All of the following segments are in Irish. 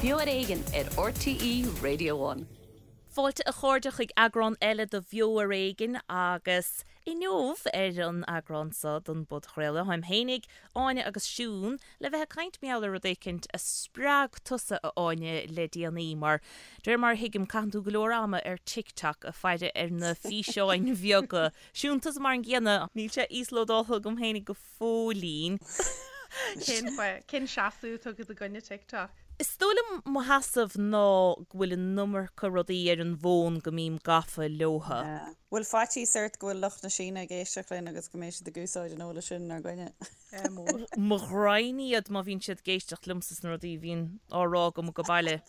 Beo ar Éigean ar RTÉ Radio One. Fáilte a chairde chuig eagrán eile de Bheo ar Éigean agus inniu ar an eagrán seo den bpodchraoladh táim fhéinig, Áine agus Siún le bheith ag caint mar gheall ar rud éicint a spreag tusa a Áine le déanaí mar de réir mar a thuigim caitheann tú go leor ama ar TikTok ag faire ar na físeáin bheaga. Siún, tusa mar an gcéanna. Níl sé íoslódáltha agam fhéinig go fóillín. Cén fáth? Cén seasamh atá agat i gcoinne TikTok? Is dóigh liom mo sheasamh ná go bhfuil an iomarca rudaí ar an bhfón go mbím gafa leotha. Bhfuil faitíos ort go bhfuil lucht na Síne ag éisteacht linn agus go mbeidh siad ag úsáid an eolais sin inár gcoinne? Mór. Mo ghraidhin iad má bhíonn siad ag éisteacht liomsa sna rudaí a bhíonn á rá agam go baile.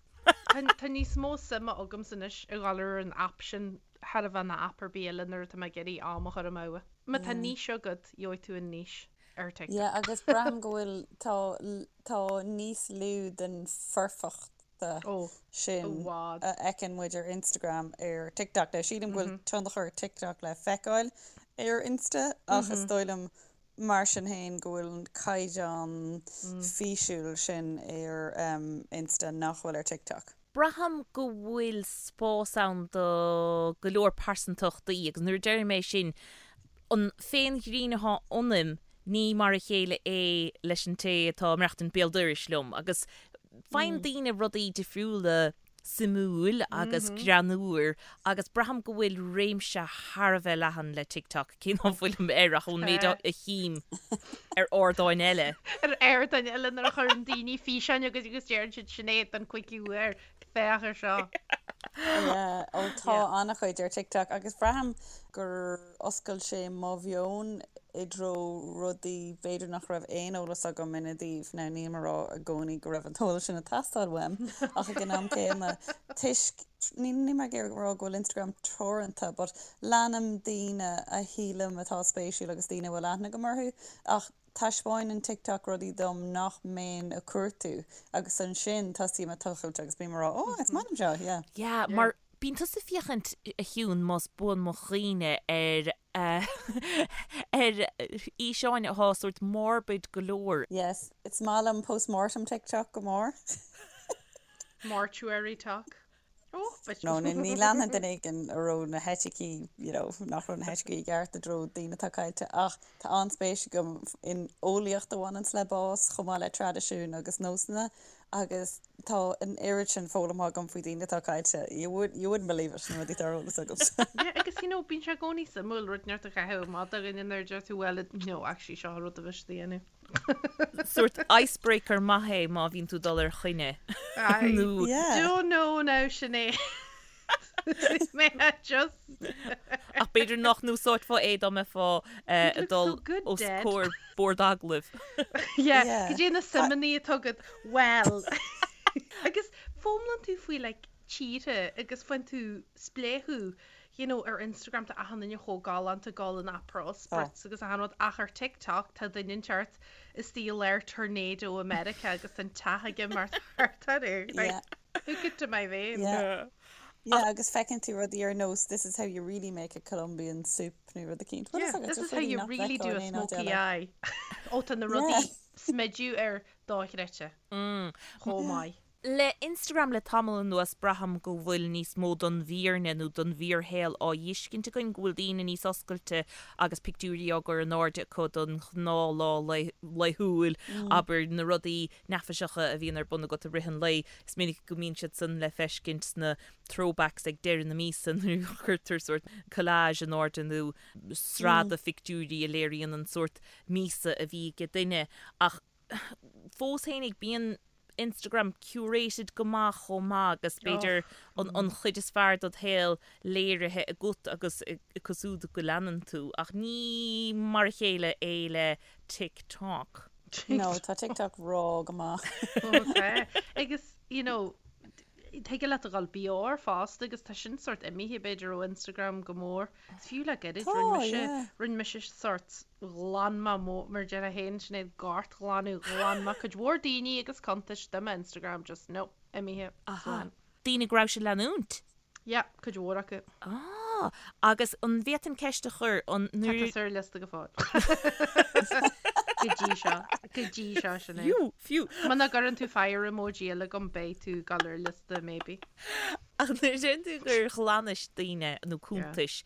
Tá níos mó suime agamsa anois a dhul ar an aip sin thar a bheith ná aip ar bith eile nuair atá mé ag iarraidh am a chur amú. Má tá niche agat, gheobhaidh tú an niche ar TikTok. Yeah, agus braithim go bhfuil, tá, tá níos lú den foirfeachta sin a fheiceann muid ar Instagram ar TikTok. Now, sílim go bhfuil tionchar TikTok le feiceáil ar Insta ach is dóigh liom mar sin féin go bhfuil an caighdeán físiúil sin ar Insta nach bhfuil ar TikTok. Braithim go bhfuil spás ann do go leor pearsantachtaí agus nuair a deirim é sin, an féinghreann atá ionaim, ní mar a chéile é leis an té atá ag maireachtaint béal dorais liom agus faigheann daoine rudaí difriúla suimiúil agus greannmhar agus braithim go bhfuil réimse thar a bheith leathan le TikTok, cé ná fuilim air ach ón méid a chím ar ardáin eile. Ar ardáin eile nuair a chuireann daoine físeáin chugat agus deireann siad Sinéad don cúigiú huair, féach ar seo. Yeah, ó tá an-chuid ar TikTok agus braithim gur oscail sé mo mheon i dtreo rudaí b'fhéidir nach raibh aon eolas agam ina dtaobh. Now nílim ag rá i gcónaí go raibh an t-eolas sin ag teastáil uaim ach ag an am céanna toisc, níl mé ag iarraidh rá go bhfuil Instagram teoranta but leanaim daoine a shílim atá spéisiúil agus daoine a bhfuil aithne agam orthu ach taispeáineann TikTok rudaí dom nach mbeinn ag cuartú agus ansin tosaím ag tochailt agus bím ag rá oh is maith liom seo, yeah. Yeah, mar bíonn tusa ag féachaint, a Shiún, más buan mo chuimhne, ar ar fhíseáin atá sórt morbid go leor. Yes, is maith liom post-mortem TikTok go mór. Mortuary talk. Oh, but No, ní ní leanfainn duine éigin a raibh na heiticí, you know, nach raibh na heiticí i gceart i dtreo daoine atá caillte ach tá an-spéis agam in eolaíocht a bhaineanns le bás chomh maith le traidisiúin agus nósanna agus tá an oiread sin foghlamtha agam faoi daoine atá caillte. You would, you wouldn't believe it, na rudaí atá ar eolas agamsa. Yeah, agus you know, bíonn sé i gcónaí suimiúil rud inteacht a chaitheamh amach do dhuine nuair a deir tú well, no, actually seo an rud a bheas a dhéanamh. Sórt icebreaker maith é má bhíonn tú ag dul ar choinne. I Nó Yeah. don't know now, Sinéad. May I just... Ach b'fhéidir nach n-úsáidfeá é dá mbeifeá You'd ag look dul so good os dead. comhair bord agallaimh. Yeah, Yeah. cad é na suimeanna atá agat? Well. Agus foghlaimíonn tú faoi like tíortha agus faigheann tú spléachadh you know ar Instagram tá achan duine chomh galánta ag dul in Aperol Spritz agus achan rud ach ar TikTok tá duine inteacht istigh i lár tornado i Meiriceá agus tá an teach aige mar thart air. Like, Yeah. hook it to my vein. Yeah. Yeah, agus feiceann tú rudaí ar nós this is how you really make a Colombian soup nó rud eicínt. What is Yeah, that? this Just is how rudaí you nach really do bhfeicfeá a in aon áit smoky eile. eye. Ó tá na rudaí Yeah. smidiú ar dochreidte chomh maith. Le Instagram le tamall anuas braithim go bhfuil níos mó don bhfírinne nó don bhfíorshaol á fheiscint againn, go bhfuil daoine níos oscailte agus pictiúirí á gcur in airde acu don ghnáthlá laethúil, abair, na rudaí neafaiseacha a bhíonn ar bun agat i rith an lae. Is minic go mbíonn siad san le feiscint sna throwbacks ag deireadh na míosa nuair a chuirtear sórt collage in airde nó sraith de phictiúirí a léiríonn an sórt míosa a bhí ag duine. Ach fós fhéinig bíonn Instagram curated go maith chomh maith agus b'fhéidir an an chuid is fearr dod shaol léirithe agat agus acu siúd go leanann tú ach ní mar a chéile é le TikTok. No, tá TikTok raw go maith. Ó tá. Agus, you know, thig leat a dhul BR fosta agus tá sin sort imithe b'fhéidir ó Instagram go mór. Is fiú le gairid, Tá, rinne mise, yeah. rinne mise sort ghlan mé mo, mar déarfá féin, Sinéad, gortghlanadh, ghlan mé cuid mhór daoine agus cuntais de m'Instagram, just no, imithe, Aha. slán. Daoine go raibh sé leanúint? Yeah, cuid mhór acu. Ah. Ah, agus an bhféadfainn ceist a chur, an Tá nuair. tusa ar liosta go fóill. Go dtí seo. Go dtí seo, Sinéad. Fiú, fiú. Muna gcuireann tú fire emoji eile agam beidh tú ag dul ar liosta maybe. Ach nuair a deireann tú gur ghlanais daoine nó cuntais,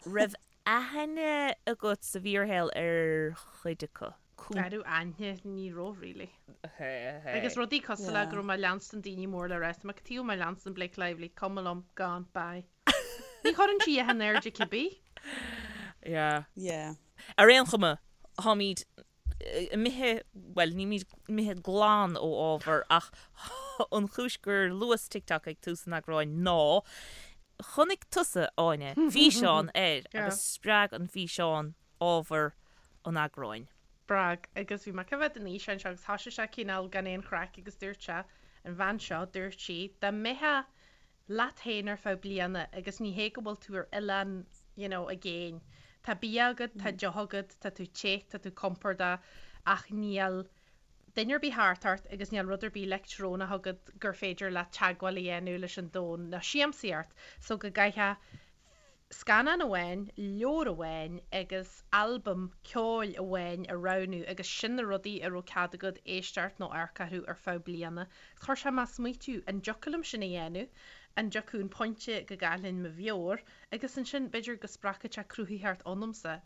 raibh aithne agat sa bhfíorshaol ar chuid acu? An raibh aithne, ní raibh really. Agus rudaí cosúil le go raibh mé ag leanstan daoine mór le rá, tá mé cad chuige mé ag leanstan Blake Lively, cuma liom, gone, bye. Ní chuireann sí in airde cibé. Yeah. Yeah. Ar aon chuma, táimid imithe, bhuel, nílimid imithe glan ó ábhar ach an chúis gur luas TikTok ag tús an eagráin ná chonaic tusa, Áine, físeán air agus spreag an físeán ábhar an eagráin. Spreag, agus bhí mé ag coimhéad an fhíseáin seo agus thoisigh sé cineál gan aon chraic agus dúirt sé, an bhean seo, dúirt sí, dá mbeifeá leat féin ar feadh bliana agus ní hé go bhfuil tú ar oileán you know i gcéin, tá bia agat, tá deoch agat, tá tú te, tá tú compordach ach níl duine ar bith thart ort agus níl rud ar bith leictreonach agat gur féidir leat teagmháil a dhéanamh leis an domhan ná siamsaíocht so go gcaithfeá scannán amháin, leabhar amháin agus albam ceoil amháin a roghnú agus sin na rudaí a raibh cead agat éisteacht nó amharc orthu ar feadh bliana. Chuir sé mé ag smaoitiú, an dtiocfadh liom sin a dhéanamh? An dtiocfadh an pointe go gcaillfinn mo mheabhair? Agus ansin b'fhéidir go spreagfadh sé cruthaitheacht ionamsa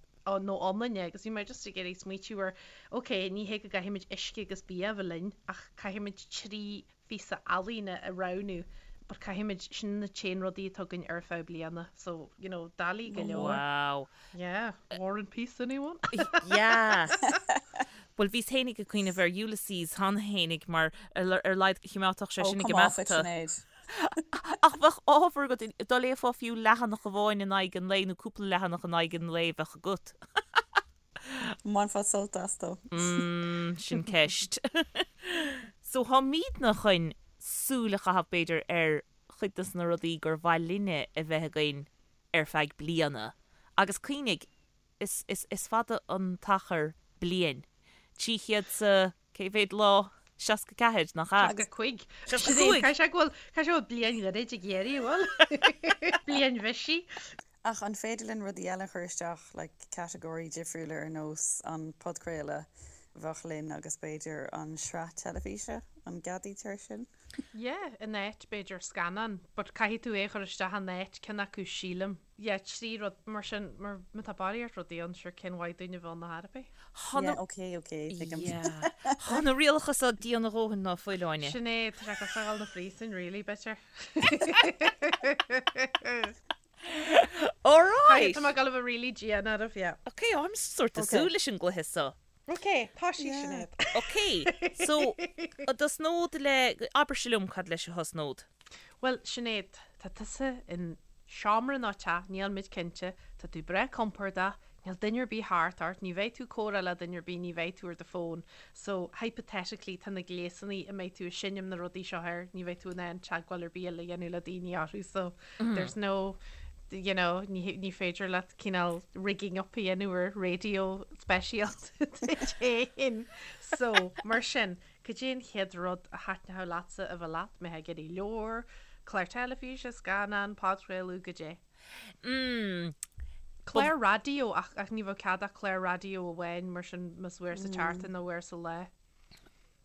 nó ionainne agus bhí mé just ag iarraidh smaoitiú ar, ok, ní hé go gcaithfimid uisce agus bia a bheith linn ach caithfimid 3 phíosa ealaíne a roghnú but caithfimid, sin na t-aon rudaí atá againn ar feadh bliana so you know doiligh go leor. Wow. Yeah, War and Peace anyone? Yeah. Bhuel bhíos fhéinig ag cuimhneamh ar Ulysses cheana fhéinig mar ar a laghad chimeádfadh sé Oh sin ag come off imeacht it Sinéad. Ach bheadh ábhar agat, dá léifeá fiú leathanach amháin in aghaidh an lae nó cúpla leathanach in aghaidh an lae bheadh agat. Mbainfeá sult as though. Mm, sin ceist. So táimidne chun súil a chaitheamh b'fhéidir ar chuid dos na rudaí gur mhaith linne a bheith againn ar feadh bliana. Agus cuimhnigh, is, is, is fada an t-achar bliain. 300 's cé mhéad lá? 64, nach ea? 65. 65! Caithfidh sé go bhfuil, caithfidh sé go bhfuil bliain ghairid ag iarraidh, an bhfuil? Bliain bhisigh. Ach an féidir linn rudaí eile a chur isteach, like catagóirí difriúla ar nós an podchraoladh bheadh linn agus b'fhéidir an sraith teilifíse, an gceadaítear sin? Yeah, in áit b'fhéidir scannán, but caithfidh tú é a chur isteach in áit ceann acu sílim. Yeah, 3 rud mar sin, mar má tá barraíocht rudaí ann, sure cén mhaith dúinn a bheith ann ar chor ar bith? Tá na. Yeah, ok, ok, tuigim. Yeah. Tá na rialacha so dian a dhóthain ná fuil, Áine. Sin é, tá sé cosúil le dhul 'na phríosúin really, b'fhéidir. Alright! Tá mé ag dul a bheith really dian oraibh, yeah. Ok, I'm sort of Ok. súil leis an gcluiche so. Ok, tosaigh Yeah. Sinéad. Ok, so, a dtosnód le, abairse liom cad leis a thosnód. Bhuel, Sinéad, tá tusa in seomra nó teach, níl muid cinnte, tá tú breá compordach, Níl duine ar bith thart ort, ní bheidh tú ag comhrá le duine ar bith, ní bheidh tú ar do fón. So, hypothetically, tá na gléasanna a mbeidh tú ag seinm na rudaí seo air, ní bheidh tú in ann teagmháil ar bith eile a dhéanamh le daoine orthu, so there's no, you know, ní, ní féidir leat cineál rigging up a dhéanamh ar raidió speisialta duit féin. So, mar sin, cad é an chéad rud a thaitneodh leatsa a bheith leat, mbeifeá ag iarraidh leabhar, clár teilifíse, scannán, podchraoladh, goidé? Mm. Clár raidió, ach ach ní bheadh cead ach clár raidió amháin mar sin más uair sa tseachtain nó uair sa lá.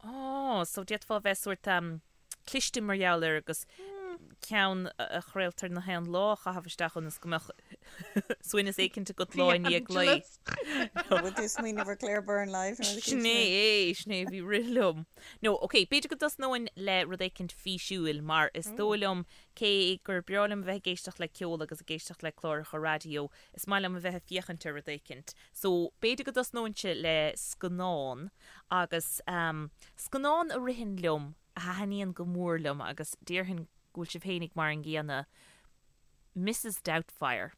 Ó, so d'fhéadfá a bheith sórt um, cliste mar gheall air agus ceann a chraoltar na haon lá a chaitheamh isteach ionas go mbeadh suaimhneas éicint agat lá i ndiaidh lae. Bhfuil tú ag smaoineamh ar Claire Byrne Live nó rud Sin é é, sin é a bhí rith liom. No, ok, b'fhéidir go dtosnóinn le rud éicint físiúil mar is dóigh liom Cé gur breá liom a bheith ag éisteacht le ceol agus ag éisteacht le cláracha raidió, is maith liom a bheith ag féachaint ar rud éicint. So, b'fhéidir go dtosnóinnse le scannán agus ehm, scannán a ritheann liom, a thaitníonn go mór liom agus déarfainn go bhfuil sibh fhéinig mar an gcéanna, Mrs Doubtfire.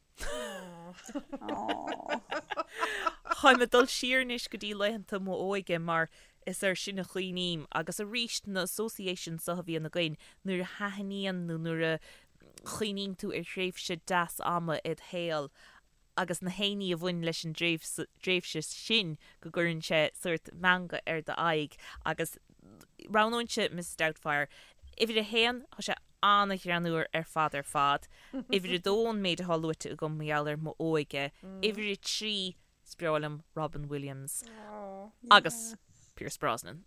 Táim ag dul siar anois go dtí laethanta m'óige mar is air sin a chuimhním agus arís na associations so a bhíonn againn nuair a thaitníonn nó nuair a chuimhníonn tú ar thréimhse deas ama id shaol agus na héinní a bhain leis an dtréimhse sin go gcuireann sé sórt meangadh ar d'aghaidh agus roghnóinnse Mrs Doubtfire. Uimhir a haon, tá sé. An-ghreannmhar ar fad ar fad. Uimhir a dó an méid atá luaite agam mar gheall ar m'óige. Uimhir a 3, is breá liom Robin Williams agus Pierce Brosnan.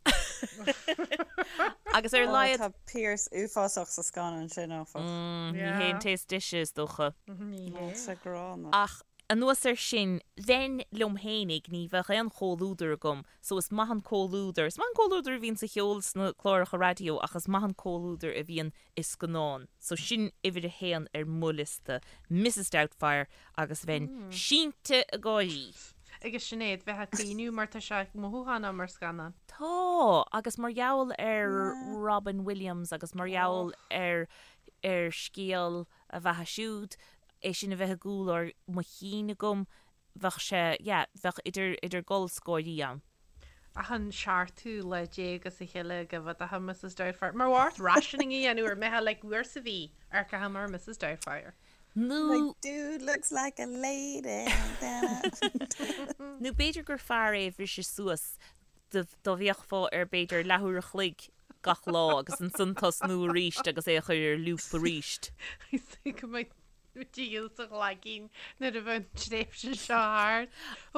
Agus ar a laghad. Tá Pierce uafásach sa scannán sin, áfach. Ní hé an té is deise, is dócha. Ní hé. Tá sé gránna. Ach anuas air sin, bheinn liom fhéinig, ní bheadh aon chomhluadar agam, so is maith an comhluadar, is maith an comhluadar a bhíonn sa cheol sna cláracha raidió ach is maith an comhluadar a bhíonn i scannán. So sin uimhir a haon ar mo liosta, Mrs Doubtfire agus bheinn sínte ag gáirí. Agus Sinéad, bheith ag caoineadh mar tá sé mothúchánach mar scannán. Tá, agus mar gheall ar Robin Williams agus mar gheall ar ar scéal a bheatha siúd, é sin a bheith i gcúl mo chinn agam, bheadh sé, yeah, bheadh idir, idir gol 's gáirí ann. Achan seachtú lá as a chéile go bhféadfá Mrs Doubtfire. Mar bheadh ort rationing a dhéanamh ar mbeifeá like uair sa mhí amharcfaidh mé ar Mrs Doubtfire. Nó. My dude looks like a lady. Nó b'fhéidir gur fearr é a bhriseadh suas dá bhféachfá air b'fhéidir leathuair a chloig gach lá agus ansan tosnú arís agus é a chur ar loop arís. Is go mbeidh Díol sa ghlaigín nuair a bheidh an tréimhse seo thart.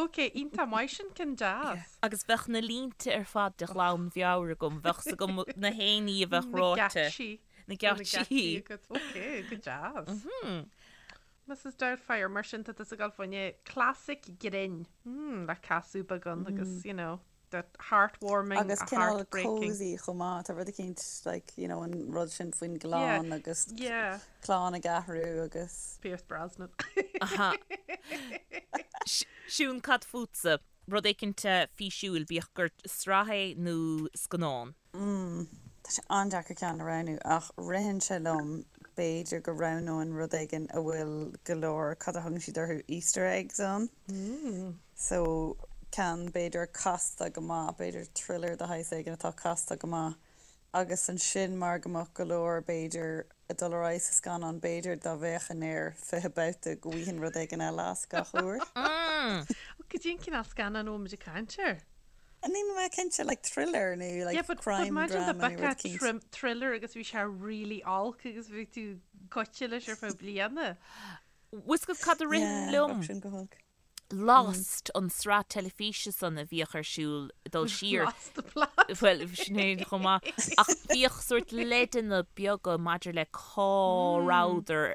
Ok, iontach maith sin, ceann deas. Agus bheadh na línte ar fad de ghlanmheabhair agam, bheadh 's agam na haon ní a bheadh ráite. Na geáitsí. Na geáitsí. agat. Ok, go deas. Mrs Doubtfire, mar sin tá tusa ag dul fá choinne classic grinn. Mm, le casadh beagán agus, you know. that heartwarming, Agus cineál heartbreaking. cozy chomh maith, tá rud eicínt like you know an rud sin faoin gclann Yeah, agus yeah. clann ag athrú agus. Pierce Brosnan. Aha. Siún, cad fútsa? Rud éicint físiúil, bíodh gur sraith é nó scannán. Mm, tá sé an-deacair ceann a roghnú ach ritheann sé liom b'fhéidir go roghnóinn rud éigin a bhfuil go leor, cad a thugann siad orthu, Easter eggs ann. So, ceann b'fhéidir casta go maith, b'fhéidir thriller de shaghas éigin atá casta go maith agus ansin mar go mbeadh go leor b'fhéidir ag dul ar aghaidh sa scannán, b'fhéidir dá bhféachfainn air 20 babhta go bhfaighinn rud éigin eile as gach uair. Cad é an cineál scannán a bhfuil muid ag caint air? Níl mé cinnte, like thriller nó Yeah, like but, but crime imagine dá drama nó rud mbeadh eicínt. trim, thriller agus bhí sé really olc agus bhí tú goite leis ar feadh bliana. Bhfuil 's agat cad a ritheann Yeah, liom? bheadh sin go holc. Lost, an sraith teilifíse san a bhíodh ar siúl ag dul siar. Lost the plot. Bhuel, sin é chomh maith. Ach bhíodh sórt leideanna beaga maidir le cá rabhadar,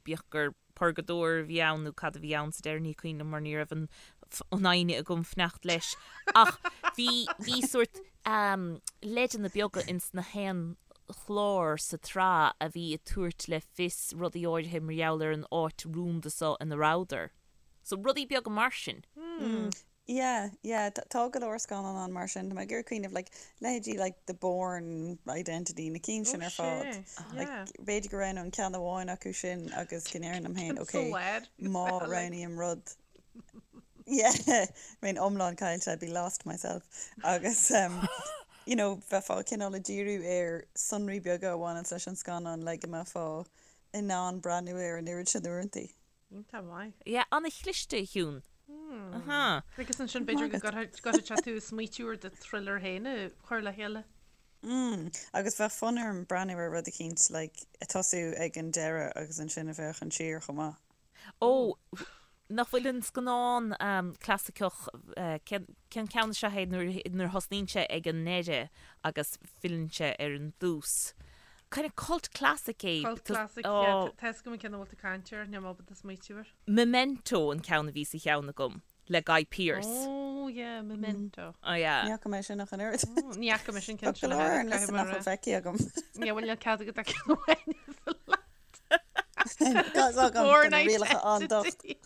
bíodh gur purgadóir a bhí ann nó cad a bhí ann sa deireadh, ní cuimhin liom mar ní raibh an fhoighne agam fanacht leis. Ach bhí, bhí sórt leideanna beaga ins na haon chlár sa tsraith a bhí ag tabhairt le fios rudaí áirithe mar gheall ar an áit rúnda so ina rabhadar. So rudaí beaga mar sin. Yeah, yeah, tá go leor scannán ann mar sin. Tá mé ag iarraidh cuimhneamh, like, leithéidí like The Bourne Identity, na cinn sin ar fad. Like, b'fhéidir go roghnóinn ceann amháin acu sin agus go ndéarfainn liom féin, okay, má roghnaím rud, yeah, bheinn iomlán caillte, I'd be lost myself. Agus, um, you know, bheifeá cineál ag díriú ar sonraí beaga a bhaineanns leis an scannán le go mbeifeá in ann breathnú air an oiread sin uaireantaí. Iontach maith. Yeah, an-chliste, a Shiún. Aha. Agus ansin b'fhéidir go gcuirfeadh sé tú ag smaoitiú ar do thriller féin a chur le chéile. Mm, agus bheadh fonn orm breathnú ar rud eicínt like ag tosú ag an deireadh agus ansin ag féachaint siar chomh maith. Ó, nach bhfuil an scannán clasaiceach, cén ceann is ea é nuair a thosnaíonn sé ag an ndeireadh agus filleann sé ar an dtús? Kind of cult classic é. Cult classic, yeah. Tá 'fhios agam an ceann a bhfuil tú ag caint air, níl mé ábalta smaoitiú air. Memento an ceann a bhí sa cheann agam, le Guy Pearce. Oh yeah, Memento. Oh yeah. Ní fhaca mé sin ach an oiread. Ní fhaca mé sin ceann Tá go leor ar an liosta nach bhfuil feicthe agam. Yeah, bhuel níl cead agat ach ceann amháin a fháil. Tá Bourne na rialacha an-docht. Identity.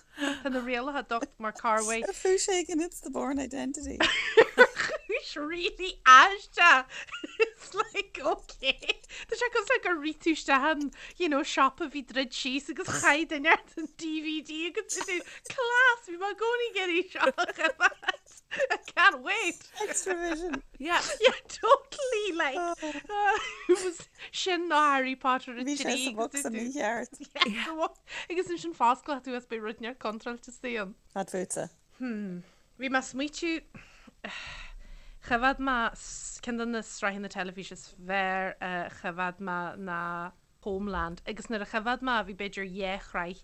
Tá na rialacha docht mar Carway. Ar chúis éigin it's the Bourne Identity. Chúis really aisteach. It's like okay. Tá sé cosúil le gur rith tú isteach in, you know, shop a bhí druidte síos agus chaith duine ort an DVD agus tú class bhí mé i gcónaí ag iarraidh seo a choimeád. I can't wait. Xtra-vision. Yeah. Yeah, totally like uh, it was sin nó Harry Potter a Bhí sé trí sa bhocsa mícheart. Agus ansin fosclóidh tú is beidh rud inteacht contráilte istigh ann. Cad fútsa? Hmm. Bhí mé ag smaoitiú choimhéad mé ceann de na sraitheanna teilifíse is fearr a choimhéad mé ná. Homeland agus nuair a choimheád mé bhí b'fhéidir dhá shraith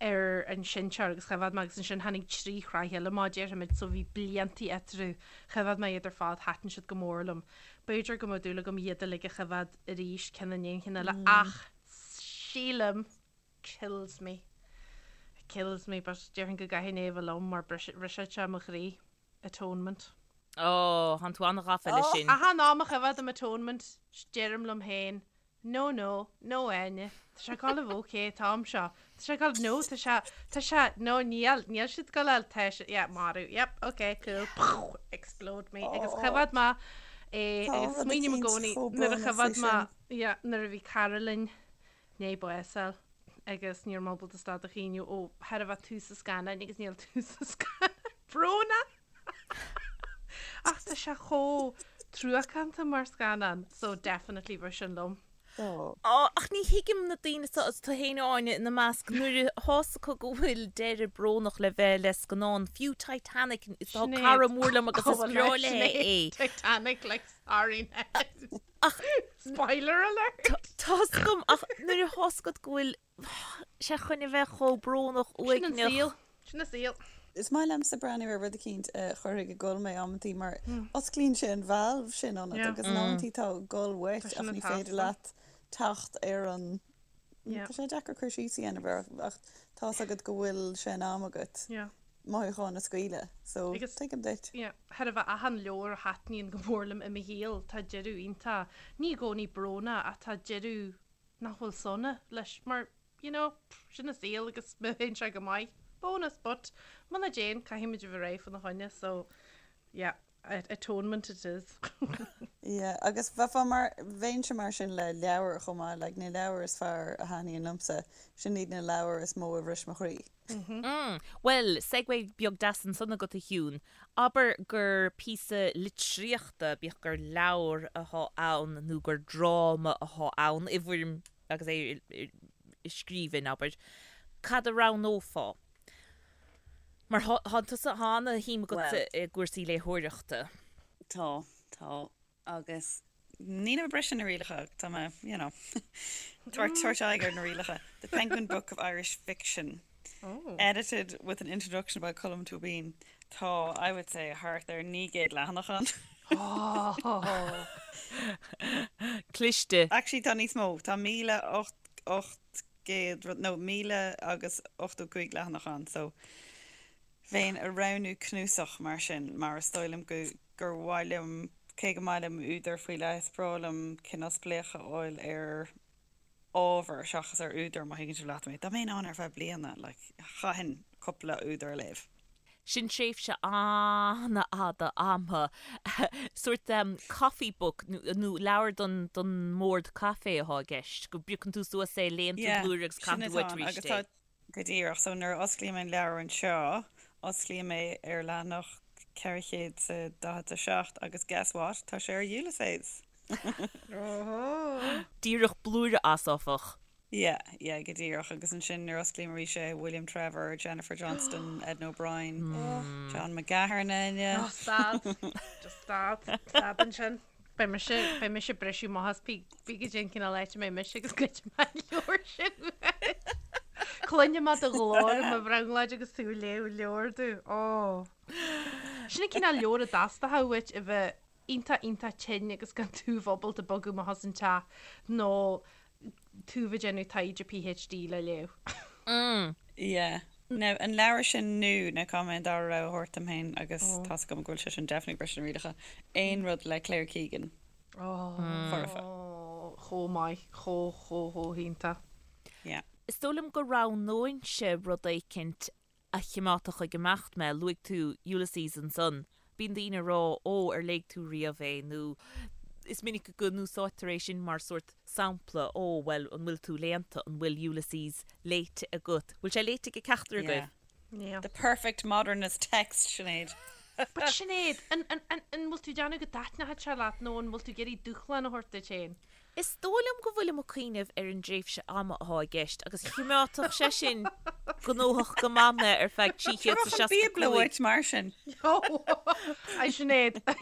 ar an seinnteoir agus choimheád mé agus ansin tháinig trí shraith eile amach déarfaimid so bhí bliantaí eatarthu. Choimheád mé iad ar fad, thaitin siad go mór liom. B'fhéidir go mbeadh dúil agam iad uilig a choimheád arís ceann i ndiaidh an chinn eile ach sílim kills me. It kills me but déarfainn go gcaithfinn é a bheith liom mar brisfeadh sé mo chroí. Atonement. Ó, thánn tú an-ghafa leis sin. Achan am a choimheádaim Atonement deirim liom féin No, no, no Áine, tá sé ag gabháil a bheith ok an t-am seo. Tá sé ag gabháil, no, tá sé, tá sé, no, níl, níl siad ag gabháil, tá sé, yeah, marú, yep, ok, cool, poof, explode me. Agus choimheád mé é, agus smaoiním i gcónaí nuair a choimheád mé, yeah, nuair a bhí cara linn, i ndiaidh bás a fháil agus ní raibh mé ábalta stad a chaoineadh ó chóir a bheith tús an scannáin agus níl tús an scannáin brónach! Ach tá sé chomh truacánta mar scannán so definitely bheadh sin liom. Ó, ach ní thuigim na daoine seo, is tú féin Áine ina measc, nuair atá's acu go bhfuil deireadh brónach le bheith le scannán, fiú Titanic, is tá cara mór liom agus is breá léi é. Titanic like sorry Ned. Ach Spoiler alert! Tá's agam ach nuair atá's agat go bhfuil sé chun a bheith chomh brónach Sin an uaigneach. saol. Sin an saol. Is maith liomsa breathnú ar rud eicínt a chuirfidh ag gol mé amantaí mar osclaíonn sé an valve sin ionat agus in amantaí tá gol uait ach ní féidir leat teacht ar an Tá sé deacair cur síos a dhéanamh air ach tá's agat go bhfuil sé in am agat mothúcháin a scaoileadh so tuigim duit. Yeah, chóir a bheith achan leabhar a thaitníonn go mór liom i mo shaol, tá deireadh iontach, ní i gcónaí brónach ach tá deireadh nach bhfuil sona leis mar you know, sin an saol agus má théann sé go maith, bonus but muna dtéann caithfimid a bheith réidh fána choinne so yeah, atonement it is. Yeah, agus bheifeá mar, bheinnse mar sin le leabhair chomh maith, like na leabhair is fearr a thaitníonn liomsa, sin iad na leabhair is mó a bhris mo chroí. Mm, bhuel, segue beag deas ansan agat a Shiún. Abair gur píosa litríochta, bíodh gur leabhar athá ann nó gur dráma athá ann, i bhfoirm agus é i scríbhinn, abair, cad a roghnófá? Mar tá tusa, tá ana-shuim agatsa i gcúrsaí léitheoireachta. Tá, tá. Agus nílim ag briseadh na rialacha, tá mé, you know, tabhairt aghaidh ar na rialacha. The Penguin Book of Irish Fiction, edited with an introduction by Colm Tóibín. Tá, I would say, thart ar 900 leathanach ann. Cliste. Actually, tá níos mó, tá 1,800 rud, nó 1,085 leathanach ann, so bheinn ag roghnú cnuasach mar sin, mar is dóigh liom go gur mhaith liom, cé go maith liom údar faoi leith, is breá liom cineál spléachadh a fháil ar ábhar seachas ar údar, má thuigeann sibh leat mé. Dá mbeinn ann ar feadh bliana, like, chaithfinn cúpla údar a léamh. Sin tréimhse an-fhada ama. Sórt coffee book nó leabhar don don mbord caife atá i gceist, go bpiocann tú suas é, léann tú blúire agus caitheann tú uait arís é. Go díreach. So nuair a osclaím an leabhar anseo, osclaím é ar leathanach 447 agus guess what? Tá sé ar Ulysses! Díreach blúire as, áfach. Yeah, yeah, go díreach. Agus ansin nuair a osclaím arís é, William Trevor, Jennifer Johnston, Edna O'Brien, John McGahern, Oh, stad. Just stad. Stad ansin. Beidh mise, beidh mise ag briseadh amach as pé goidé an cineál áit a mbeidh mise agus goidfidh mé an leabhar sin uait. Cluinfidh mé do ghlór i mo bhrionglóid agus tú ag léamh leabhar domh. Ó. Sin an cineál leabhar a dteastódh uait a bheith iontach iontach tinn agus gan tú bheith ábalta bogadh amach as an teach nó tú bheith ag déanamh taighde PhD le léamh. Yeah. Now, an leabhar sin nó, now caithfidh mé an dara rogha a thabhairt dom féin agus tá's agam go bhfuil sé sin definitely ag briseadh na rialacha, aon rud le Claire Keegan. Foirfe. Chomh maith, chomh, chomh, chomh hiontach. Yeah. Is dóigh liom go roghnóinnse rud éicint a chimeádfadh ag imeacht mé. Luaigh tú Ulysses ansan. Bíonn daoine ag rá, 'Ó, ar léigh tú riamh é?' nó is minic go n-úsáidtear é sin mar sórt sampla, 'Ó, bhuel, an bhfuil tú léannta? An bhfuil Ulysses léite agat? Bhfuil sé léite ag ceachtar agaibh? Yeah. The perfect modernist text, Sinéad. But Sinéad, an, an, an, an bhfuil tú ag déanamh go dtaitneoidh sé leat nó an bhfuil tú ag iarraidh dúshlán a thabhairt duit féin? Is dóigh liom go bhfuilim ag cuimhneamh ar an dtréimhse ama atá i gceist agus chimeádfadh sé sin gnóthach go maith mé ar feadh Tabharfadh an Bíobla 365. uait mar sin. A Sinéad, I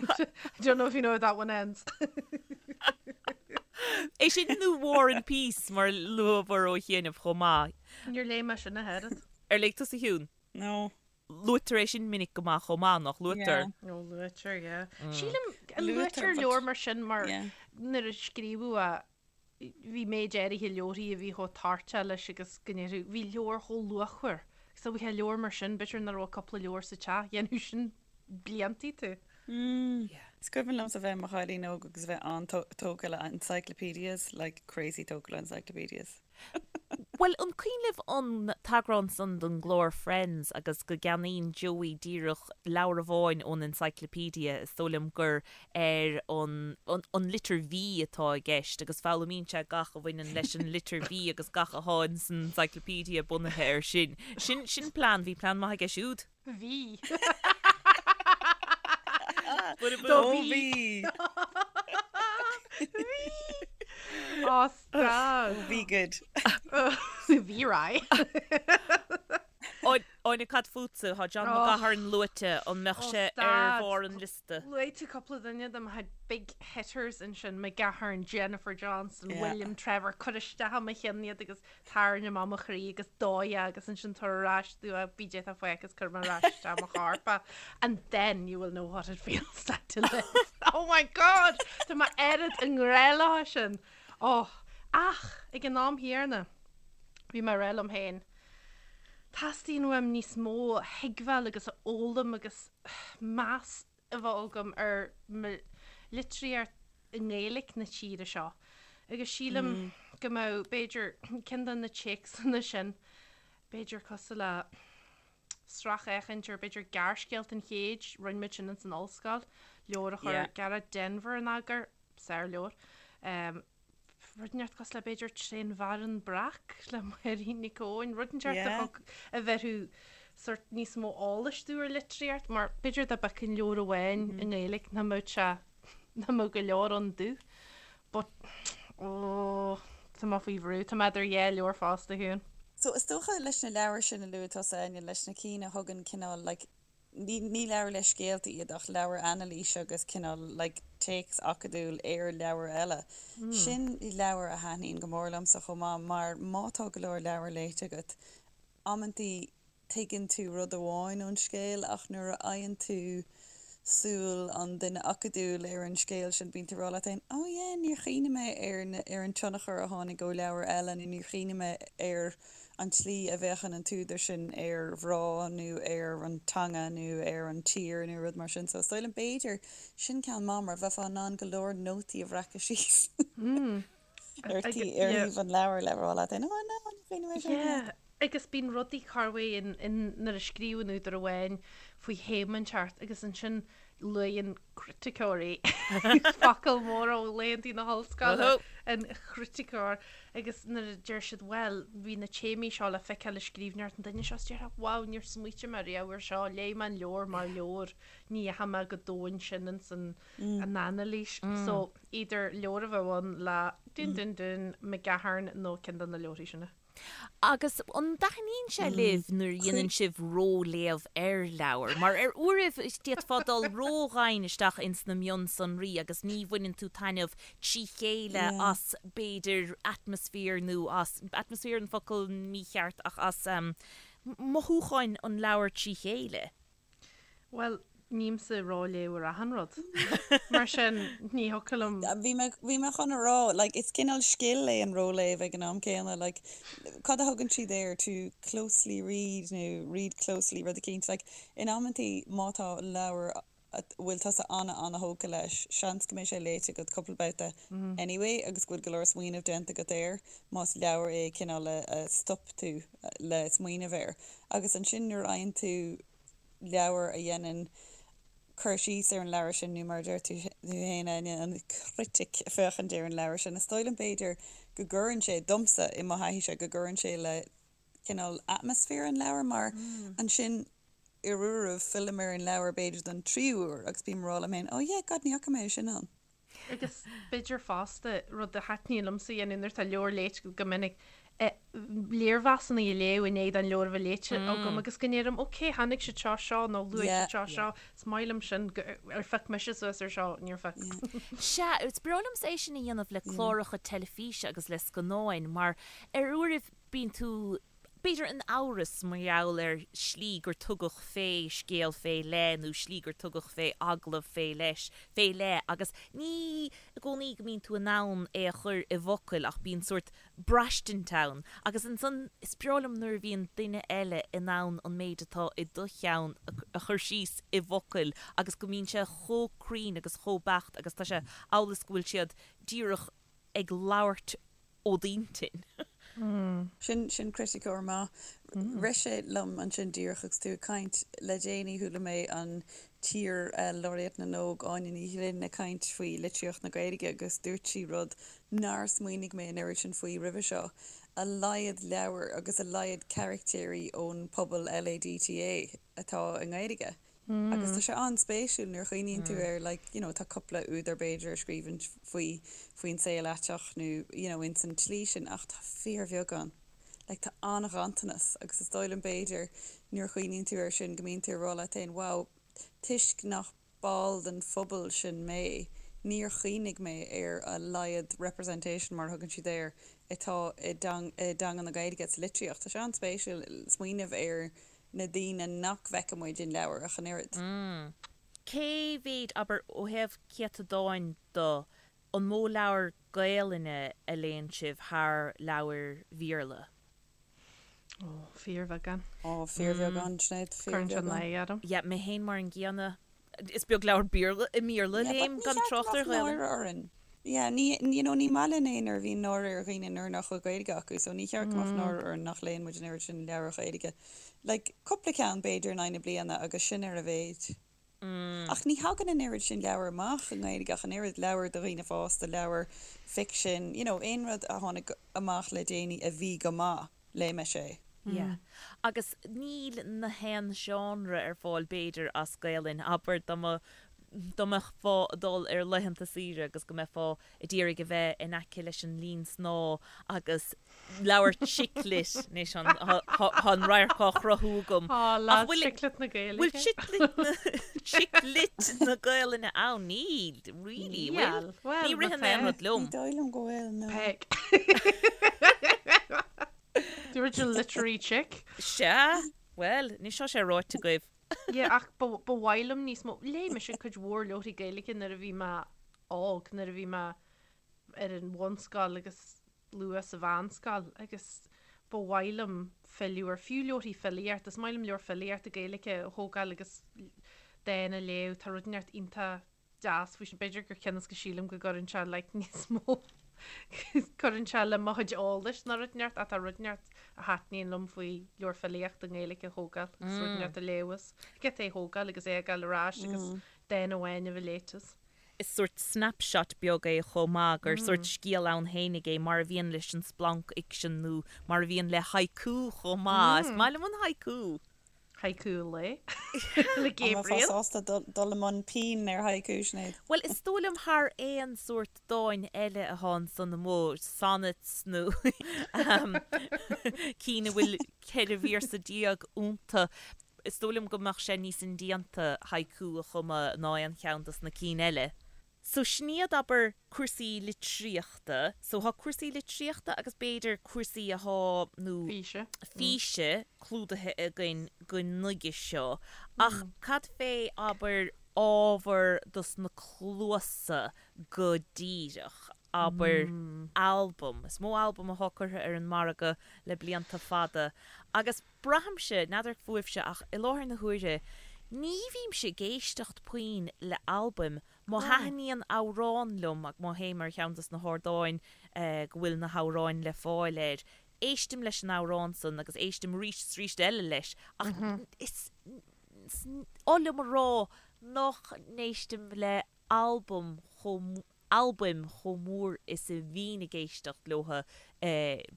don't know if you know how that one ends. É sin nó War and Peace mar luamar ó chianaibh chomh maith. Níor léigh mé sin ach oiread. Ar léigh tusa a Shiún? No. Luaitear é sin minic go maith chomh maith, nach luaitear? Yeah. Ó, luaitear, yeah. Sílim, an luaitear leabhar mar sin mar nuair a scríobhadh é, bhí méid áirithe leabharthaí a bhí chomh toirteach leis agus go ndéarfadh, bhí leabhar chomh luachmhar. Agus dá bhfaighfeá leabhar mar sin, b'fhéidir nach raibh cúpla leabhar sa teach, dhéanfadh sin bliantaí tú. Is cuimhin liomsa bheith i mo chailín óg agus bheith an-tógtha le encyclopedias, like crazy tógtha le encyclopedias. Bhuel, an cuimhin libh an t-eagrán san den gclár Friends agus go gceannaíonn Joey díreach leabhar amháin ón encyclopedia, is dóigh liom gur ar an an litir V atá i gceist agus foghlaimíonn sé gach a bhaineann leis an litir V agus gach atá ins an encyclopedia bunaithe air sin. Sin sin plean, bhí plean maith aige siúd. Bhí. Do bhí. Bhí. Ó, stop. Bhí good. Bhí right. Áine, cad fútsa? Tá John McGahern luaite, an mbeadh sé ar bharr an liosta? Luaigh tú cúpla duine de mo chuid big hitters ansin, McGahern, Jennifer Johnston, William Trevor, cuir isteach i mo cheann iad agus tarraing amach mo chroí agus dóigh é agus ansin tabhair ar ais domh é bídh déanta faic agus cuir mé ar ais isteach mo chorp é and then you will know what it feels like to live. Oh my God! Tá mé oiread i ngrá leo sin. Oh, ach ag an am chéanna bhí mé ag rá liom féin teastaíonn uaim níos mó a thuigbheáil agus a fhoghlaim agus meas a bheith agam ar mo litríocht i nGaeilic na tíre seo agus sílim go mbeadh, b'fhéidir, ceann de na téacsanna sin, b'fhéidir cosúil le sracfhéachaint ar b'fhéidir Gearrscéalta an Chéid, rinne muid sin ins an ollscoil, leabhar a chuir Gearóid Denvir in eagar, sárleabhar. Rud inteacht cosúil le b'fhéidir Trén bhFearann Breac le Máirín Nic Eoin, rud inteacht a thug, a bheirfeadh sórt níos mó eolais domh ar litríocht, mar b'fhéidir dá bhfeicfinn leabhar amháin i nGaeilge nach mbeadh sé, nach mbeadh go leor ann domh. But, oh, tá mé faoi bhrú, tá mé idir dhá leabhar fosta, a Shiún. So is dócha leis na leabhair sin a luaigh tusa, Áine, leis na cinn a thugann cineál like Ní leabhair le scéalta iad ach leabhair anailíse agus cineál like téacs acadúil ar leabhair eile. Sin leabhair a thaitníonn go mór liomsa chomh maith mar má tá go leor leabhar léite agat, amantaí tuigeann tú rud amháin ón scéal ach nuair a fhaigheann tú súil an duine acadúil ar an scéal sin bíonn tú ag rá leat féin oh yeah níor chuimhnigh mé ar ar an tionchar a tháinig ó leabhar eile nó níor chuimhnigh mé ar an tslí a bhféachann an t-údar sin ar mhná nó ar an teanga nó ar an tír nó rud mar sin. So is dóigh liom b'fhéidir, sin ceann maith mar bheifeá in ann go leor nótaí a bhreacadh síos ar ar thaobh an leabhair le rá leat féin, oh no, ní chuimhnigh mé sin. Yeah, agus bíonn rudaí corruair in nuair a scríobhann údar amháin faoi théama inteacht agus ansin luíonn criticeoirí, focal mór ó laethanta na hollscoile, an criticeoir, agus nuair a deir siad bhuel, bhí na téamaí seo le feiceáil i scríbhneoireacht an duine seo, is déarfá wow, níor smaoitigh mé riamh air seo, léigh mé an leabhar mar leabhar, ní dheachaigh mé go domhain sin ins an anailís. So, either leabhar a bheadh ann le dún dún dún, McGahern nó ceann de na leabharthaí sin. Agus an dtaitníonn sé libh nuair a dhéanann sibh ró-léamh ar leabhar? Mar ar uairibh d'fhéadfá dul ró-dhoimhin isteach ins na mionsonraí agus ní bhaineann tú taitneamh trí chéile as b'fhéidir atmaisféar nó as, atmaisféar an focal mícheart ach as mothúcháin an leabhair trí chéile. Bhuel, nímse ag ró-léamh ar achan rud. Mar sin, ní thiocfadh liom. Bhí mé, bhí mé chun a rá, like, is cineál scil é an ró-léamh ag an am céanna, like, cad a thugann siad air, to closely read nó read closely, rud eicínt, like, in amantaí má tá leabhar a bhfuil tusa ana-ana-thógtha leis, seans go mbeidh sé léite agat cúpla babhta anyway agus go bhfuil go leor smaoineamh déanta agat air, más leabhar é cineál a, a stop tú le smaoineamh air. Agus ansin nuair a fhaigheann tú leabhar a dhéanann cur síos ar an leabhar sin, nó mar a deir tú féin, Áine, an chritic ag féachaint ar an leabhar sin, is dóigh liom b'fhéidir go gcuireann sé, domsa, i mo thaithíse, go gcuireann sé le cineál atmaisféar an leabhair mar ansin ar uairibh fillim ar an leabhar b'fhéidir don tríú huair agus bím ag rá liom féin, oh yeah, God, ní fhaca mé é sin ann. Agus b'fhéidir fosta, rud a thaitníonn liomsa a dhéanamh nuair atá leabhar léite agam go minic, léirmheasanna a léamh i ndiaidh don leabhar a bheith léite agam agus go ndeirim, ok, chonaic siad seo seo nó luaigh siad seo seo, is maith liom sin, ar phioc mise suas ar seo, níor phioc. Sea, is breá liomsa é sin a dhéanamh le cláracha teilifíse agus le scannáin mar ar uairibh bíonn tú b'fhéidir in amhras mar gheall ar shlí gur tugadh fé scéal fé leith nó slí gur tugadh fé agallamh fé leis, fé leith agus ní i gcónaí go mbíonn tú in ann é a chur i bhfocail ach bíonn sórt braistint ann agus ansan is breá liom nuair a bhíonn duine eile in ann an méid atá i do cheann a chur síos i bhfocail agus go mbíonn sé chomh cruinn agus chomh beacht agus tá sé amhail is go bhfuil siad díreach ag labhairt ó d'intinn. Sin, sin criticeoir maith. Rith sé liom ansin díreach agus tú ag caint, le déanaí chuala mé an t-iar-Laureate na nÓg, Áine Ní Ghlinn, ag caint faoi litríocht na Gaeilge agus dúirt sí rud nár smaoinigh mé an oiread sin faoi roimhe seo, a laghad leabhar agus a laghad caractéirí ón pobal LADTA atá i nGaeilge. Agus tá sé an-spéisiúil nuair a chuimhníonn tú air, like, you know, tá cúpla údar b'fhéidir a scríobhann faoi, faoin saol aiteach nó, you know, ins an tslí sin ach tá fíorbheagán. Like, tá an-ghanntanas agus is dóigh liom b'fhéidir nuair a chuimhníonn tú air sin go mbíonn tú ag rá leat féin, wow, toisc nach ball den phobal sin mé, níor chuimhnigh mé ar a laghad representation, mar a thugann siad air, atá i dteanga na Gaeilge sa litríocht. Tá sé an-spéisiúil smaoineamh ar na daoine nach bhfeiceann muid in leabhair ach an oiread. Cé mhéid, abair, ó thaobh céatadáin de, an mó leabhar Gaelainne a léann sibh thar leabhair Bhéarla? Ó, fíorbheagán. Ó, fíorbheagán, Sinéad, Cuireann sé fíorbheagán. náire orm. Yeah, mé féin mar an gcéanna. Is beag leabhar Béarla, i mBéarla a Yeah, but léim, ní gan cheart go trácht ar mbeadh Ghaelainn. náire orainn. Yeah, ní, you know, ní maith linn é nuair a bhíonn náire ar dhaoine nuair nach bhfuil Gaeilge acu, so ní cheart go mbeadh náire orainn nach léann muid an oiread sin leabhair Ghaeilge. Like, cúpla ceann b'fhéidir in aghaidh na bliana agus sin ar a mhéid. Ach ní thagann an oiread sin leabhar amach i nGaeilge ach an oiread, leabhair do dhaoine fásta, leabhair ficsin, you know, aon rud a tháinig amach le déanaí a bhí go maith, léigh mise é. Yeah. Agus níl na haon genre ar fáil b'fhéidir as Gaelainn, abair dá mba, dá mbeifeá ag dul ar laethanta saoire agus go mbeifeá ag iarraidh a bheith in aice leis an linn snámha agus leabhar chick lit, anois tá an radharc á chruthú agam. Tá Ach lads bhfuil, chick lit na Gaeilge. bhfuil chick lit na, chick lit na Gaelainne ann? Níl, really, bhfuil? Níl, bhuel, Ní má ritheann tá. aon rud liom. Ní dóigh liom go bhfuil, no. Peig. The original literary chick. Sea, bhuel, anois tá sé ráite agaibh. Yeah, ach ba ba mhaith liom níos mó. Léigh mise cuid mhór leabharthaí Gaeilge nuair a bhí mé óg, nuair a bhí mé ar an bhunscoil agus luath sa mheánscoil agus ba mhaith liom filleadh ar fiú leabharthaí filíochta. Is maith liom leabhar filíochta Gaeilge a thógáil agus dán a léamh. Tá rud inteacht iontach deas faoi sin. B'fhéidir gur cionn is go sílim go gcuireann sé like níos mó cuireann sé le mo chuid eolais ná rud inteacht ach tá rud inteacht a thaitníonn liom faoi leabhar filíochta i nGaeilge a thógáil agus rud inteacht a léamh as. Get é a thógáil agus é a fhágáil ar ais agus dán amháin a bheith léite as. Is sórt snapshot beag é chomh maith, gur sórt scéal ann fhéinig é, mar a bhíonn leis an splancfhicsean nó mar a bhíonn le haiku chomh maith. Is maith liom an haiku! Haiku an lae le An mbeifeá Gabriel. sásta dul i mbun pinn ar haiku, Sinéad? Bhuel, is dóigh liom thar aon sórt dáin eile atá ansan amuigh, sonnets nó cinn a bhfuil 14 véarsa iontu, is dóigh liom go mbeadh sé níos indéanta haiku a chumadh ná aon cheann dos na cinn eile. So sin iad, abair, cúrsaí litríochta. So thá cúrsaí litríochta agus b'fhéidir cúrsaí athá, nó. Físe. físe clúdaithe againn go nuige seo. Ach cad fé, abair, ábhar dos na cluasa go díreach? Abair, albam. Is mó albam athá curtha ar an margadh le blianta fada agus braithimse, n'fheadar fúibhse ach i láthair na huaire, ní bhímse ag éisteacht puinn le albaim Má thaitníonn amhrán liom, agus má théim ar cheann dos na hardáin go bhfuil na hamhráin le fáil air, éistim leis an amhrán san agus éistim arís is arís eile leis ach is oth liom a rá nach n-éistim le albam chomh albaim chomh mór is a bhínn ag éisteacht leotha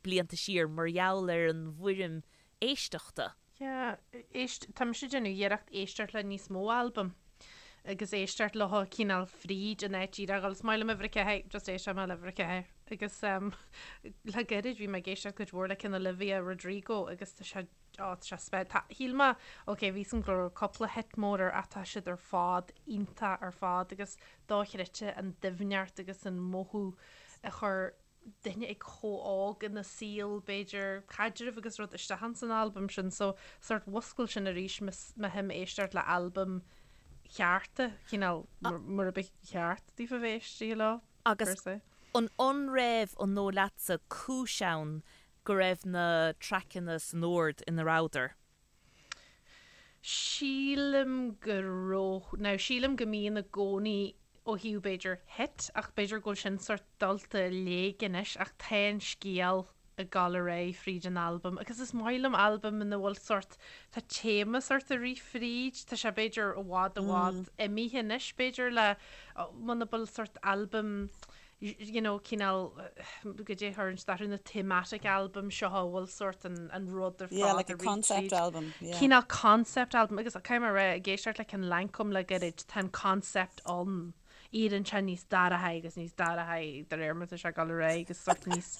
blianta siar mar gheall ar an bhfoirm éisteachta. Yeah, éist, tá mise ag déanamh iarracht éisteacht le níos mó albam. agus éisteacht leo cineál fríd an áit díreach agus is maith liom uimhir a 4, just éisteoidh mé le uimhir a 4 agus le gairid bhí mé ag éisteacht cuid mhór le cineál Olivia Rodrigo agus tá sé Ó, tá sé spe-, tá, shíl mé, ok, bhí 'fhios a'm go raibh cúpla hit mór air ach tá siad ar fad iontach ar fad agus dochreidte an doimhneacht agus an mothú a chuir duine ag chomh óg ina saol, b'fhéidir, caidreamh agus rud isteach ins an albam sin so sort mhuscail sin arís mo shuim éisteacht le albaim chearta, cineál mar a ba cheart daofa bheith éistithe leo, Agus per se. an an raibh, an dóigh leatsa, cúis ann go raibh na traiceanna san ord ina rabhadar. Sílim go raibh, now sílim go mbíonn i gcónaí ó thaobh b'fhéidir hit ach b'fhéidir go bhfuil sin sort dulta i léig anois ach tá an scéal ag dul ar aghaidh fríd an albam agus is maith liom albam ina bhfuil sort, tá téama sort ag rith fríd, tá sé b'fhéidir i bhfad i bhfad imithe anois b'fhéidir le, muna bhfuil sort albam you know, cineál, goidé a chuireann siad orthu, na thematic album seo a bhfuil sort an, an rud ar Yeah, fad like a a rith concept tríd. album, yeah. Cineál concept album agus caithfidh mé a rá, ag éisteacht le ceann Lancôme le gairid, tá an concept ann. Éiríonn sé níos dorcha agus níos dorcha de réir mar atá sé ag dul ar aghaidh agus sort níos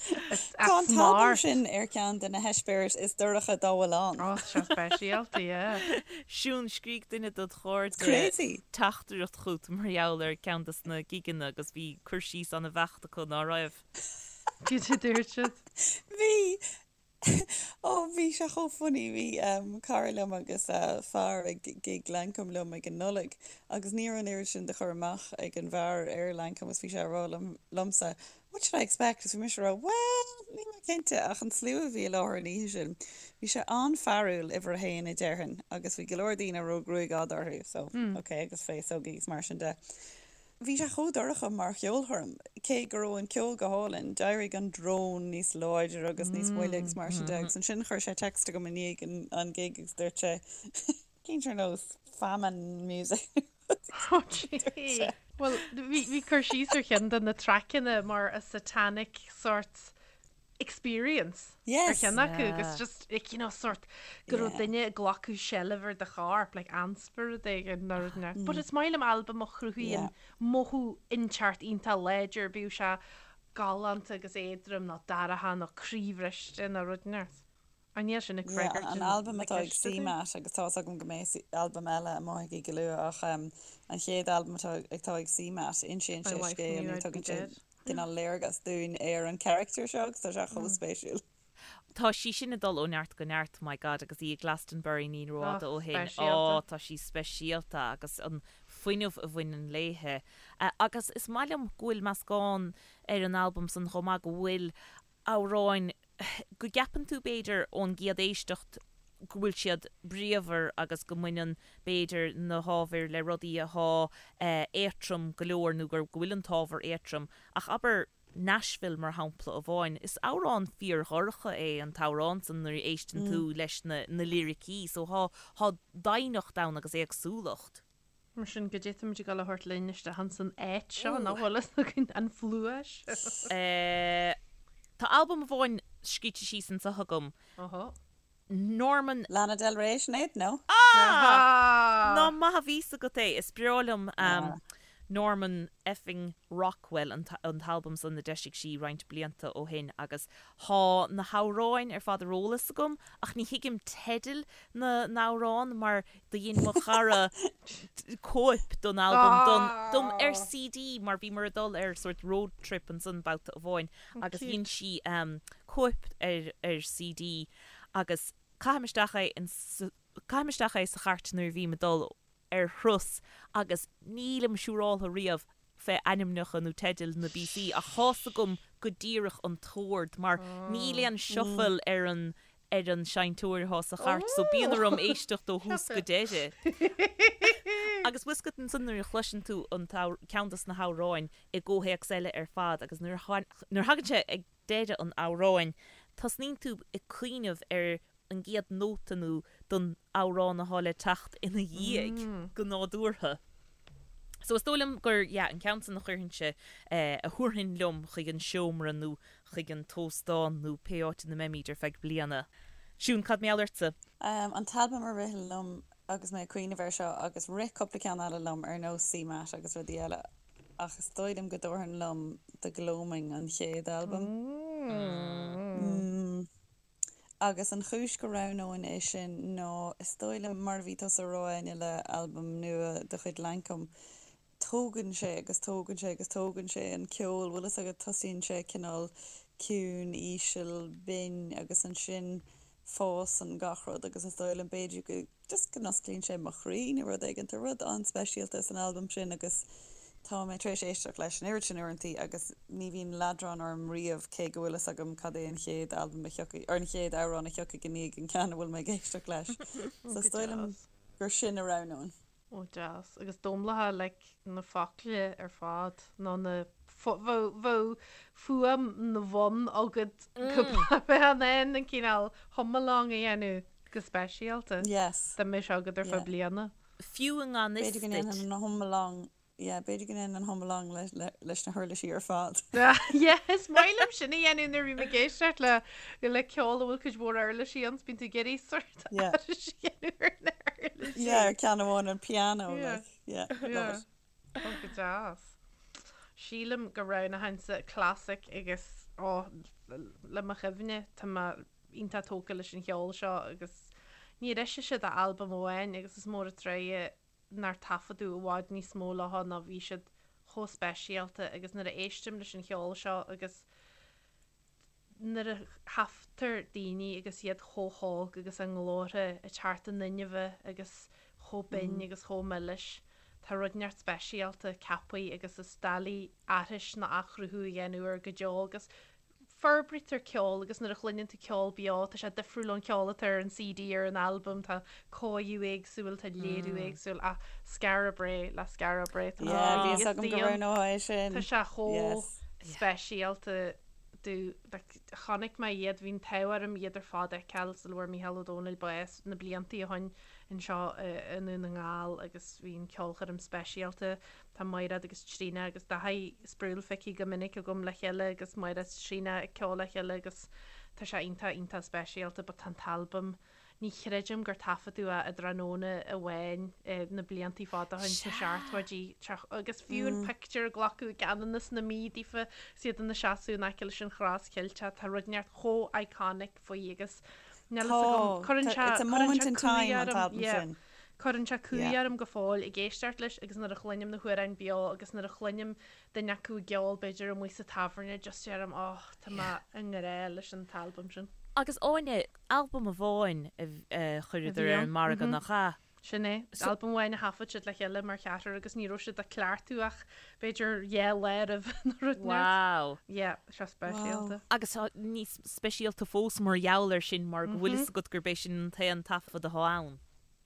Tá an t-albam sin ar cheann de na heispéiris is dorcha dá bhfuil ann. Ó, tá sé speisialta, yeah. Siún, scrígh duine dod chairde Crazy! teachtaireacht chugat mar gheall ar ceann des na gigeanna agus bhí cur síos an-bheacht acu, ná raibh? Cad a dúirt siad? Bhí! Ó, bhí sé chomh funny. Bhí cara liom agus a fear ag gig Lancôme liom ag an Nollaig agus ní raibh an oiread sin de chur amach ag an bhfear ar Lancôme agus bhí sé ag rá liom, liomsa, What should I expect? Agus bhí mise ag rá, Bhuel, níl mé cinnte ach an slua a bhí i láthair an oíche sin, bhí sé an-fhearúil, uimhir a haon a déarfainn, agus bhí go leor daoine a raibh gruaig fhada orthu, so, ok, agus féasógaí agus mar sin de. Bhí sé chomh dorcha mar cheolchoirm, cé go raibh an ceol go hálainn, d'éirigh an drone níos láidre agus níos moille agus mar sin de, agus ansin chuir sé text chugam i ndiaidh an gig agus dúirt sé, Cinnte ar nós famine music. Oh gee. Bhuel, bhí bhí cur síos ar cheann de na traiceanna mar a satanic sort experience ar Yes. cheann acu agus just like, you know, sort go raibh Yeah. duine ag glacadh seilbh ar do chorp, like ainspiorad éigin nó rud inteacht. But is maith liom albam a chruthaíonn Yeah. mothú inteacht iontach láidir, bíodh sé galánta agus éadrom nó dorcha nó croíbhriste nó rud inteacht. An níl sin ag Yeah, freagairt an na albam atá ag ceiste dúinn? CMAT agus tá's agam go mbeidh albam eile amuigh aici go luath ach um, an chéad albam atá atá ag CMAT, insíonn My sé wife scéal knew nó I'd be tugann sé dead. cineál léargas dúinn ar an character seo agus tá sé chomh spéisiúil. Tá sí sin ag dul ó neart go neart, my God, agus í i Glastonbury ní Oh, rófhada ó shin. Ó, speisialta. tá sí speisialta agus an fuinneamh a bhaineann léithe. Agus is maith liom go bhfuil meascán ar an albam san chomh maith, go bhfuil amhráin go gceapann tú, b'fhéidir, ón gcéad éisteacht go bhfuil siad bríomhar agus go mbaineann, b'fhéidir, na hábhair le rudaí athá éatrom go leor nó gur, go bhfuil an t-ábhar éatrom. Ach abair Nashville, mar shampla amháin, is amhrán fíordhorcha é an t-amhrán san nuair a éisteann tú leis na, na liricí. So thá, thá doimhneacht ann agus éagsúlacht. Mar sin, goidé táimid ag dul a thabhairt linn isteach ins an áit seo, nach bhfuil fhios againn an phluais. Tá albam amháin scríte síos anseo agam, Ohó. Norman. Lana Del Rey, Sinéad, no? Ah! Nach maith a bhí fhios agat é! Is breá liom Norman effing Rockwell, an t-albam san a d'eisigh sí roinnt blianta ó shin agus thá na hamhráin ar fad ar eolas agam ach ní thuigim teidil na n-amhrán mar do dhein mo chara cóip don albam don dom ar CD mar bhíomar ag dul ar sort road trip ansan babhta amháin agus dhein sí cóip ar ar CD agus caithim isteach é in caithim isteach é sa chairt nuair a bhím ag dul ar thuras agus nílim siúráltha riamh fé ainmneacha nó teidil na bpíosaí ach thá's agam go díreach an t-ord mar níl aon shuffle ar an ar an seinnteoir athá sa chairt so bíonn orm éisteacht ó thús go deireadh. Agus bhfuil fhios agat ansan nuair a chloiseann tú an ceann dos na hamhráin i gcomhthéacs eile ar fad agus nuair a nuair a thagann sé ag deireadh an amhráin, tosnaíonn tú ag cuimhneamh ar an gcéad nóta nó don amhrán athá le teacht ina dhiaidh, go nádúrtha. So is dóigh liom gur, yeah, an ceann san a chuirfinnse, a thabharfainn liom chuig an seomra nó chuig an t-óstán nó pé áit ina mbeimíd ar feadh bliana. Siún, cad mar gheall ortsa? An t-albam a rith liom. agus mé ag cuimhneamh air seo agus rith cúpla ceann eile liom ar nós CMAT agus rudaí eile ach is dóigh liom go dtabharfainn liom The Gloaming an chéad albam. Mm. Agus an chúis go roghnóinn é sin ná is dóigh liom mar a bhí tusa a rá Áine le albam nua de chuid Lankum tógann sé agus tógann sé agus tógann sé an ceol, bhfuil fhios agat, tosaíonn sé cineál ciúin, íseal, binn agus ansin fásann gach rud agus is dóigh liom b'fhéidir go, just go n-osclaíonn sé mo chroí nó rud éigin. Tá rud an-speisialta san albam sin agus tá mé tar éis éisteacht leis an oiread sin uaireantaí agus ní bhíonn leadrán orm riamh cé go bhfuil fhios agam cad é an chéad albam a thiocfaidh, or an chéad amhrán a thiocfaidh i ndiaidh an ceann a bhfuil mé ag éisteacht leis. So is dóigh liom gur sin a roghnóinn. Ó deas. Agus d'umhlaithe like na focla ar fad nó na bheadh fuaim na bhfonn agat go mbeadh in ann an cineál hum-along a dhéanamh go speisialta. Yes. Dá mbeadh sé agat ar feadh bliana. Fiú i ngan fhios B'fhéidir go duit. ndéanfainn an hum-along Yeah, b'fhéidir go ndéanfainn an hum-along leis na huirlisí ar fad. Yeah, is maith liom sin a dhéanamh nuair a bhím ag éisteacht le le ceol a bhfuil cuid mhór uirlisí ann, bíonn tú ag iarraidh sort aithris a dhéanamh ar na huirlisí. Yeah, ar ceann amháin an piano, like, yeah, love it. Oh, go deas. Sílim go roghnóchainnse classic agus, oh, le mo chuimhne, tá mé iontach tógtha leis an cheol seo agus níor eisigh siad ach albam amháin agus is mór an truaighe nár taifeadadh i bhfad níos mó leo nó bhí siad chomh speisialta agus nuair a éistim leis an cheol seo agus nuair a thaifeadtar daoine agus iad chomh hóg agus a nglórtha ag teacht in inmhe agus chomh binn agus chomh milis, tá rud inteacht speisialta ceaptha agus is doiligh aithris ná athchruthú a dhéanamh air go deo agus Forbraítear ceol agus nuair a chluineann tú ceol beo tá sé difriúil ón cheol atá ar an CD ar an albam, tá cóiriú éagsúil, tá léiriú éagsúil ach Skara Brae le Skara Brae tá Yeah, bhí fhios agam go roghnófá é sin. Tá sé chomh speisialta do like chonaic mé iad, bhí an t-ádh orm iad ar fad a fheiceáil sula bhfuair Mícheál Ó Domhnaill bás na bliantaí ó shoin anseo i nDún na nGall agus bhí an ceolchoirm speisialta. Tá Maighread agus Tríona agus Daithí Sproule feicthe go minic agam le chéile agus Maighread 's Tríona ag ceol le chéile agus tá sé iontach iontach speisialta but tá an t-albam, ní chreidim gur taifeadadh é i dtráthnóna amháin na bliantaí fada ó shin sna seachtóidí agus fiú an pictiúr a glacadh i gCeanannas na Mí daofa 's iad ina seasamh in aice leis an Chros Cheilteach tá rud inteacht chomh iconic faoi agus níl fhios agam cuireann sé cuireann sé cumhaidh orm yeah. Cuireann sé cumhaidh orm go fóill ag éisteacht leis agus nuair a chluinim na hamhráin beo agus nuair a chluinim duine acu ag ceol b'fhéidir amuigh sa tábhairne just deirim oh tá mé i ngrá leis an t-albam sin. Agus Áine, albam amháin a chuireadar ar an margadh nach ea? Sin é. Albam amháin a thaifead siad le chéile mar cheathrar agus ní raibh siad ag cleachtadh ach b'fhéidir dhá lá roimh nó rud inteacht. Wow. Yeah, sé speisialta. Agus tá níos speisialta fós mar gheall air sin mar go bhfuil fhios agat gurb é sin an t-aon taifead atá ann.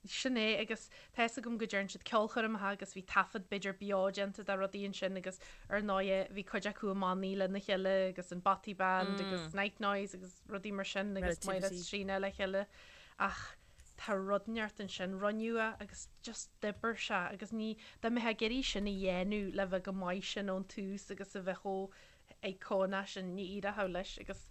Sin é, agus tá fhios agam go dtearn siad ceolchoirmeacha agus bhí taifead b'fhéidir beo déanta de rudaí ansin agus ar ndóighe bhí cuid acu i mbannaí lena chéile agus an Bothy Band agus Night Noise agus rudaí mar sin agus Máire 's Tríona le chéile ach tá rud inteacht ansin, rinneadh é agus just d'oibir sé agus ní, dá mbeifeá ag iarraidh sin a dhéanamh le bheith chomh maith sin ón tús agus a bheith chomh iconic sin, ní éireodh leis agus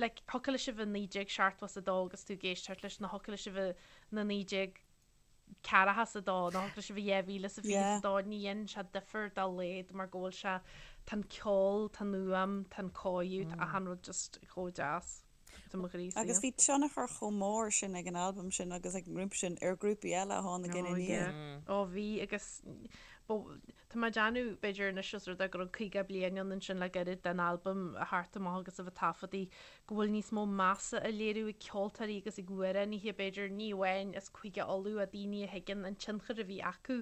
like thiocfadh leis a bheith 1972 agus tú ag éisteacht leis nó thiocfadh leis a bheith na 1942 nó thiocfadh leis a bheith 2022, ní dhéanann sé difear dá laghad mar go bhfuil sé, tá an ceol, tá an fhuaim, tá an cóiriú, tá achan rud just chomh deas. Tá mo chroí Agus bhí tionchar chomh mór sin ag an albam sin agus ag an ngrúpa sin ar ghrúpaí eile a tháinig ina ndiaidh. Ó bhí agus tá mé ag déanamh b'fhéidir anois os rud é go raibh 50 bliain ann ansin le gairid den albam a theacht amach agus a bheith taifeadtaí go bhfuil níos mó measa á léiriú ag ceoltóirí agus ag amhránaithe b'fhéidir ní amháin as Cúige Uladh ach daoine a thuigeann an tionchar a bhí acu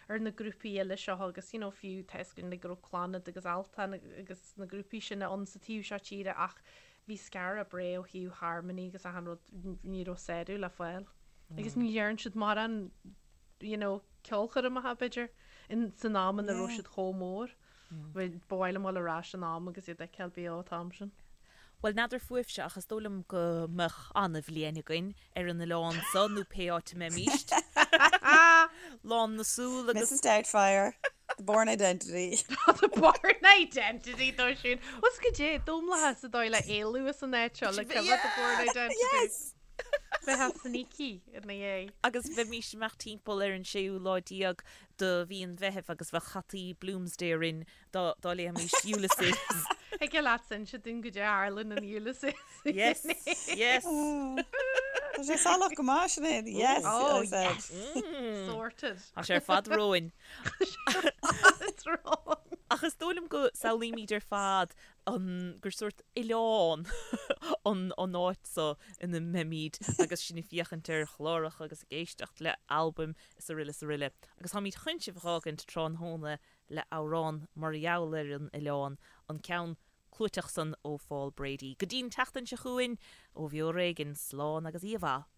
ar na grúpaí eile seo agus you know fiú tá fhios againn go raibh Clannad agus Altan agus na grúpaí sin ann sa taobh seo tíre ach Bhí Skara Brae ó thaobh harmony agus achan rud, ní raibh sárú le fáil. Agus ní dhearn siad mórán, you know, ceolchoirmeacha, b'fhéidir, in, san am ina raibh siad chomh mór. Ba mhaith liom dul ar ais in am agus iad a fheiceáil beo an t-am sin. Bhuel, n'fheadar fúibhse ach is dóigh liom go mbeadh an-bhliain againn ar an oileán so nó pé áit a mbeimíst. Lán na súl agus. Mrs Doubtfire, The Bourne Identity. The Bourne Identity dó sin. Os goidé, domlathas sa dóigh le éalú as an áit seo le coimhe The Bourne Identity. Yes! Bheifeá sneaky ina dhiaidh. Agus bheimís ag imeacht timpeall ar an séú lá déag de mhí an Mheithimh agus bheadh hataí Bloomsday orainn dá dá léimis Ulysses. Thig leat inse dúinn goidé a tharla in Ulysses. Yes, yes. Tá sé salach go maith, Sinéad. Yes, Oh, I said. yes. Sorted. Tá sé ar fad romhainn. It's wrong. Ach is dóigh liom go samhlaímid ar fad an gur sórt oileán an an áit so ina mbeimid agus sinn ag féachaint ar chláracha agus ag éisteacht le albaim is aroile is aroile. Agus táimid chun sibh a dh'fhágaint tráthnóna le amhrán mar gheall ar an oileán, an ceann clúiteach san ó Phaul Brady. Go dtí'n tseachtain seo chugainn, ó Bheo ar Éigean, slán agus oíche mhaith.